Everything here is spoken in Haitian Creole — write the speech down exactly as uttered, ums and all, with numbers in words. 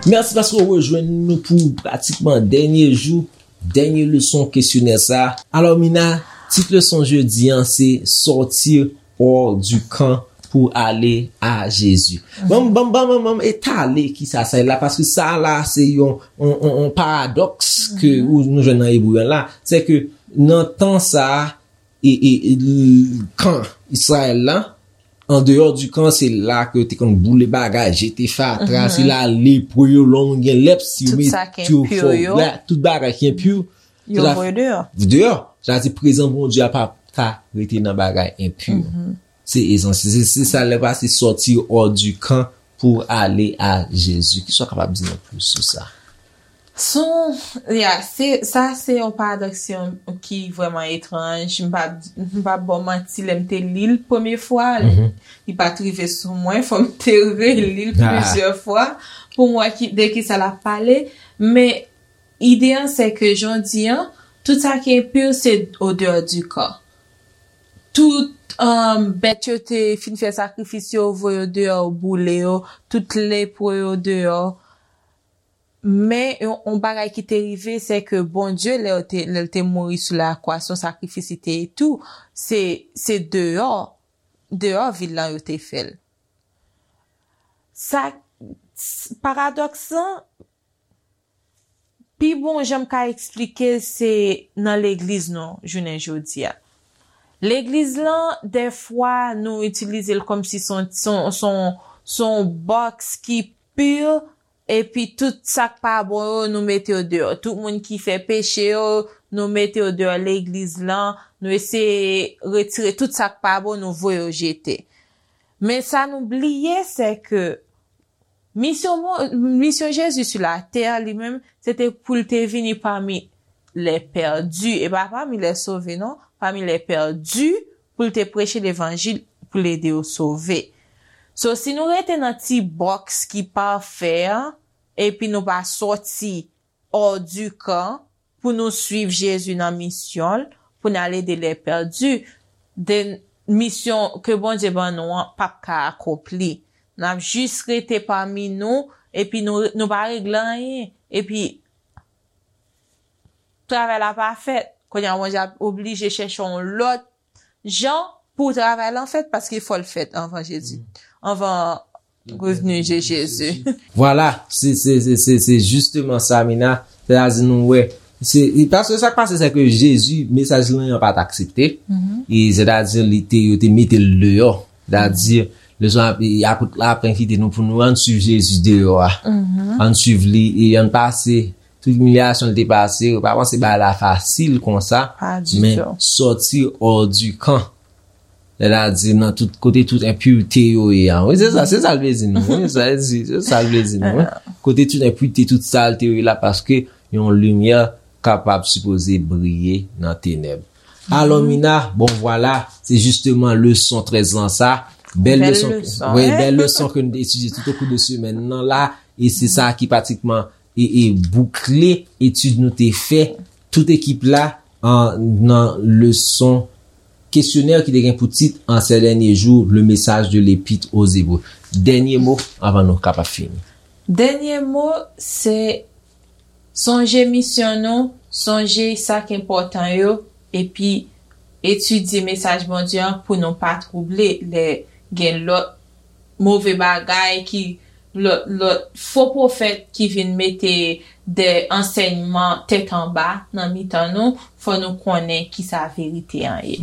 Mèsi paske w rejwenn nou pou pratikman dènye jou, dènye leson kesyonè sa. Alò, Mina, tit leson jodi an, se Sortir hors du camp pour aller à Jésus. Ban m, ban m, ban m, ban m etale kisa sa ye la, paske sa la, se yon, yon, yon, yon paradòks ke ou, nou jwenn nan Ebre an la. Se ke nan tan sa, e, e, e, l-, kan Izrayèl la, an deyò di kan, se la ke yo te konn boule bagay, jete fatra, se la lepre yo, lè w gen lèp, si yo met yo fò, tout bagay ki enpi, yo voye deyò. Deyò. Sa di prezans Bondye a pa ka rete nan bagay enpi. Se ezans, se, se sa lè pase sortir hors du camp pour aller à Jésus. Kisa w kapab di nou plis sou sa? Son, ya, se, sa se yon paradòks ki vrèman etranj. M pa, m pa ba w manti, lè m te li l premye fwa, li pa t rive sou mwen, fò m te reli l plizyè fwa pou m wè ki, de kisa l ap pale. Men ide an, se ke jan w di an, tout sa ki enpi, se au dehors du camp. Tout, um, bèt yo te fin fè sakrifis yo, voye yo deyò, boule yo, tout lepre yo deyò. Men yon, yon bagay ki te rive, se ke Bondye, lè l te, lè l te mouri sou lakwa, se yon sakrifis li te ye tou, se, se deyò, deyò vil lan yo te fè l. Sa, s-, paradòks lan, pi bon jan m ka eksplike l, se nan legliz nou, jounen jodi a. Legliz lan, dèfwa, nou itilize l kòmsi se yon, se yon, se yon, se yon bòks ki pi, epi tout sa k pa bon yo, nou mete yo deyò. Tout moun ki fè peche yo, nou mete yo deyò legliz lan, nou eseye retire tout sa k pa bon, nou voye yo jete. Men sa nou bliye, se ke misyon Bon-, misyon Jezi sou latè, li menm, se te pou l te vini pami les perdus, e pa pami les sauvés, non, pami les perdus, pou l te preche levanjil, pou l ede yo sove. So, si nou rete nan ti bòks ki pafè an, epi nou pa sòti hors du camp pou nou suiv Jezi nan misyon l, pou n al ede les perdus, then misyon ke Bondye ban nou an p ap ka akonpli. N ap jis rete pami nou, epi nou, nou pa regle anyen. Epi, travay la pa fèt. Kounye a, Bondye ap oblije chèche yon lòt jan pou travay lan fèt, paske fò l fèt anvan Jezi, anvan revni de Jezi. Vwala, se, se, se, se, se jisteman sa, Mina. Sètadi nou wè, se, e paske sa k pase, se ke Jezi, mesaj lan an pa t aksepte. E sètadi li te, yo te mete l deyò. Sètadi, leson ap-, e apot la ap envite nou pou nou ann suiv Jezi deyò a. Ann suiv li e ann pase tout imilyasyon l te pase, yo pa panse bagay la fasil konsa, men sortir hors du camp. Sètadi nan tout kote tout enpirite yo ye a. Wi, se sa, se sa l vle di nou. Wi, sa l di, se sa l vle di nou. Wi. Kote tout enpirite, tout salte yo ye la, paske yon limyè kapab sipoze briye nan tenèb. Alò, Mina, bon, vwala, se jisteman leson trèz lan sa. Bèl leson, wi, bèl leson ke nou te etidye tout au cours de semèn nan la, e se sa ki pratikman e, e boukle etid nou te fè, tout ekip la, an, nan leson kesyonè ki te gen pou tit En ces derniers jours, le message de l'Épître aux Hébreux. Dènye mo anvan nou kapab fini. Dènye mo, se sonje misyon nou, sonje sa k enpòtan yo, epi etidye mesaj Bondye an pou nou pa twouble lè gen lòt move bagay ki lòt, lòt fo pwofèt ki vin mete de ansèyman tèt anba nan mitan nou, fò nou konnen kisa verite an ye.